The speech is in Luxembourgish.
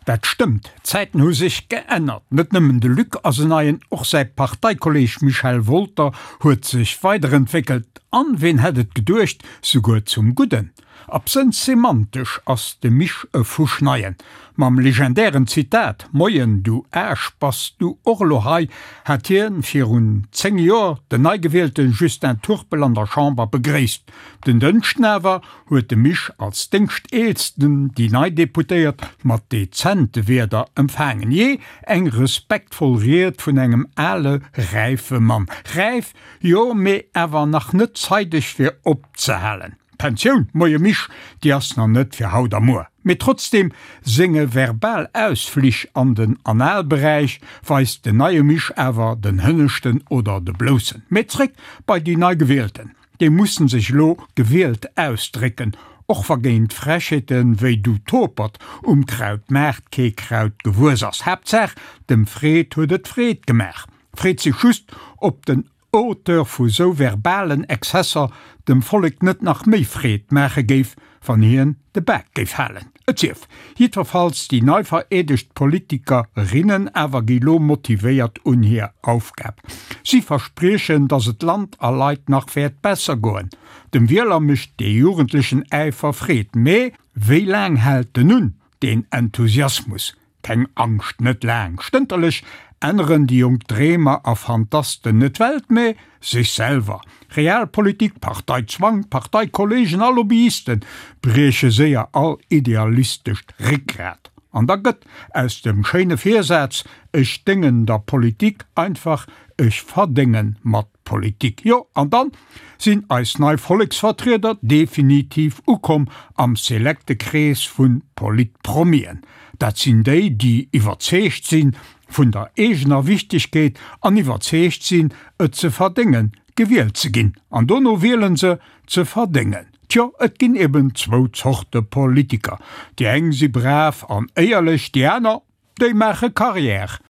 Dat stëmmt, d'Zäiten hu sech geännert. Net nëmmen de Luc ass en Neien, och säi Parteikolleeg Michel Wolter huet sech weiderentwéckelt an, ween hätt et geduecht, souguer zum Gudden. Absënns semantesch ass de Mich e Fuschneien. Mam legendären Zitat Moien du Aarsch, bass du och elo hei? hat hien virun 10 Joer den neigewielte Justin Turpel an der Chamber begréisst. Den Dënschden awer huet de Misch als Déngschteelsten déi nei Deputéiert mat dezente Wierder empfaangen. Jee, eng respektvoll Ried vun engem ale, räife Mann. Räif, jo, mee awer nach net zeideg fir opzehalen. D'Pensioun, moie Misch, déi ass nach net fir haut a muer. Mee trotzdem senge verbal Ausflich an den Analberäich weist den neie Misch awer den hënneschten oder de bloussen. Mee zréck bei déi nei Gewielten. Déi mussen sech elo gewielt ausdrécken, och wa géint Frechheeten wéi du Topert um Krautmaart kee Kraut gewuess ass. Haaptsaach dem Fred huet et Freed gemaach. Freet sech just, ob den Auteur vu sou verbalen Exzesser dem Vollek net nach méi Freed maache géif, wann hien de Bak géif halen. Et sief jiddwerfalls, déi nei vereedegt Politikerinnen awer gi lo motivéiert un hir Aufgab. Si verspriechen, datt et Land a Leit nach wäert besser goen. Dem Wieler mécht dee jugendlechen Äifer Freed, mee wéi laang hält en un, deen Enthusiasmus? Keng Angscht, net laang. Stënterlech änneren déi jonk Dreemer a Fantasten net d'Welt, mä sech selwer. Realpolitik, Parteizwang, Parteikollegen a Lobbyiste brieche séier all idealistescht Réckgrat. An da gëtt aus dem schéine Virsaz Ech déngen der Politik einfach Ech verdénge mat Politik. Jo, an dann sinn eis nei Volleksvertrieder definitiv ukomm am selekte Krees vun Politpromien. Dat sinn déi, déi iwwerzeegt sinn vun der eegener Wichtegkeet an iwwerzeegt sinn, et ze verdéngen, gewielt ze ginn. An dono wielen se, ze verdéngen. Tjo, et ginn eben zwou Zorte Politiker. Déi eng si brav an éierlech, déi aner, déi maache Carrière.